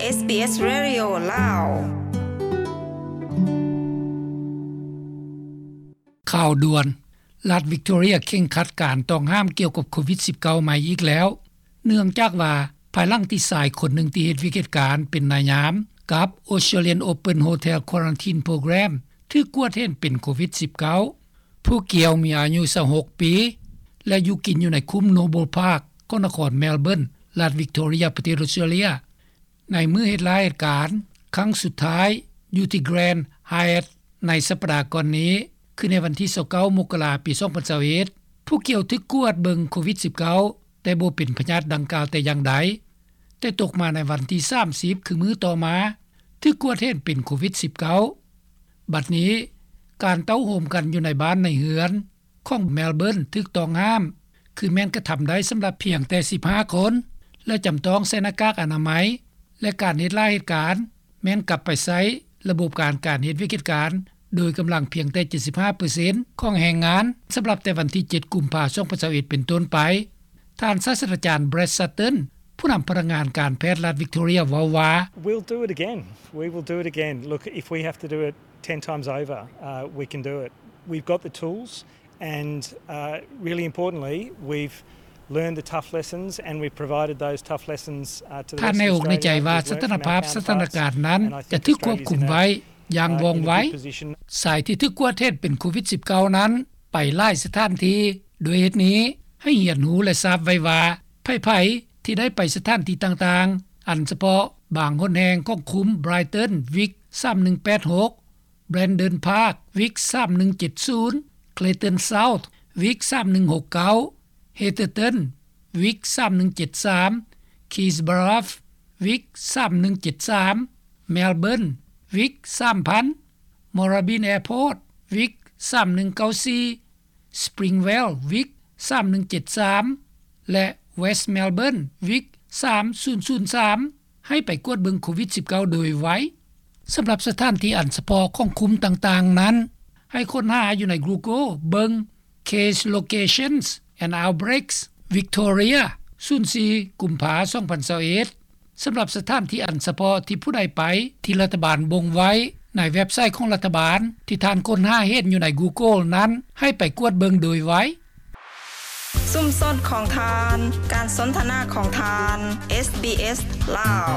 ເອສບີເອສ Radio ລາວ. ຂ່າວດ່ວນ: ລັດວິກຕໍເຣຍເຄັ່ງຄັດການຕ້ອງຫ້າມກ່ຽວກັບໂຄວິດ-19 ໃໝ່ອີກແລ້ວ ເນື່ອງຈາກວ່າ ພາຍຫຼັງທີ່ຊາຍຄົນໜຶ່ງທີ່ເຮັດວຽກເຮັດການເປັນນາຍຍາມກັບ Australian Open Hotel Quarantine Program ຖືກກວດເຫັນເປັນໂຄວິດ-19. ຜູ້ກ່ຽວມີອາຍຸ ຊາວຫົກ ປີ ແລະ ຢູ່ກິນຢູ່ໃນຄຸ້ມ Noble Park ຂອງນະຄອນ Melbourne ລັດວິກຕໍເຣຍ ປະເທດອອສເຕຣເລັຽ. ໃນມື້ເຮັດລາເຮັດການຄັ້ງສຸດທ້າຍ ຢູ່ທີ່ Grand Hyatt ໃນສັບປະດາກ່ອນນີ້ ຄືໃນວັນທີ ຊາວເກົ້າ ມົກກະລາ ປີ ສອງພັນຊາວເອັດ ຜູ້ກ່ຽວຖືກກວດເບິ່ງໂຄວິດ-19 ແຕ່ບໍ່ເປັນພະຍາດດັ່ງກ່າວແຕ່ຢ່າງໃດ, ແຕ່ຕົກມາໃນວັນທີ ສາມສິບ ຄືມື້ຕໍ່ມາ ຖືກກວດເຫັນເປັນໂຄວິດ-19. ບັດນີ້ ການເຕົ້າໂຮມກັນຢູ່ໃນບ້ານໃນເຮືອນ ຂອງ Melbourne ຖືກຕ້ອງຫ້າມ ຄືແມ່ນກະທຳໄດ້ສຳລັບພຽງແຕ່ ສິບຫ້າ ຄົນ ແລະ ຈຳຕ້ອງໃສ່ໜ້າກາກອະນາໄມ ແລະ ການເຮັດລາເຮັດການ ແມ່ນກັບໄປໃຊ້ລະບົບການ ການເຮັດວຽກເຮັດການໂດຍກຳລັງພຽງແຕ່ ເຈັດສິບຫ້າເປີເຊັນ ຂອງແຮງງານ ສຳລັບແຕ່ວັນທີ ເຈັດ ກຸມພາ ສອງພັນຊາວເອັດ ເປັນຕົ້ນໄປ. ທ່ານສາດສະດາຈານ Brad Sutton ຜູ້ນຳພະນັກງານການແພດລັດວິກຕໍເຣຍ ເວົ້າວ່າ: We'll do it again. We will do it again. Look, if we have to do it ten times over, uh, we can do it. We've got the tools and, uh, really importantly, we've learned the tough lessons and we've provided those tough lessons, uh, to the rest of Australia. ທ່ານໃນອົກໃນໃຈວ່າ ສະຖານະພາບສະຖານະການນັ້ນຈະຖືກຄວບຄຸມໄວ້ຢ່າງວ່ອງໄວ. ຊາຍທີ່ຖືກກວດເຫັນເປັນໂຄວິດ-19 ນັ້ນໄປຫຼາຍສະຖານທີ່. ດ້ວຍເຫດນີ້ ໃຫ້ຮຽນຮູ້ ແລະ ຊາບໄວ້ວ່າ ໃຜໆທີ່ໄດ້ໄປສະຖານທີ່ຕ່າງໆ ອັນສະເພາະບາງຫົນແຫ່ງຂອງຄຸ້ມ Brighton Vic ສາມໜຶ່ງແປດຫົກ, Brandon Park Vic ສາມໜຶ່ງເຈັດສູນ, Clayton South Vic ສາມໜຶ່ງຫົກເກົ້າ, Hatherton Vic ສາມໜຶ່ງເຈັດສາມ, Keys Bluff Vic ສາມໜຶ່ງເຈັດສາມ, Melbourne Vic ສາມພັນ, Moorabbin Airport Vic ສາມໜຶ່ງເກົ້າສີ່, Springvale Vic ສາມໜຶ່ງເຈັດສາມ ແລະ West Melbourne Vic ສາມສູນສູນສາມ ໃຫ້ໄປກວດເບິ່ງໂຄວິດ-19 ໂດຍໄວ. ສຳລັບສະຖານທີ່ອັນສະເພາະຂອງຄຸ້ມຕ່າງໆນັ້ນ ໃຫ້ຄົ້ນຫາຢູ່ໃນ Google ເບິ່ງ Case Locations and Outbreaks Victoria ສູນສີ່ ກຸມພາ ສອງພັນຊາວເອັດ. ສຳລັບສະຖານທີ່ອັນສະເພາະທີ່ຜູ້ໃດໄປ ທີ່ລັດຖະບານບົ່ງໄວ້ໃນເວັບໄຊຂອງລັດຖະບານ ທີ່ທ່ານຄົ້ນຫາເຫັນຢູ່ໃນ Google ນັ້ນ ໃຫ້ໄປກວດເບິ່ງໂດຍໄວ. ຊຸມຊົນຂອງທ່ານ, ການສົນທະນາຂອງທ່ານ, ເອສບີເອສ ລາວ.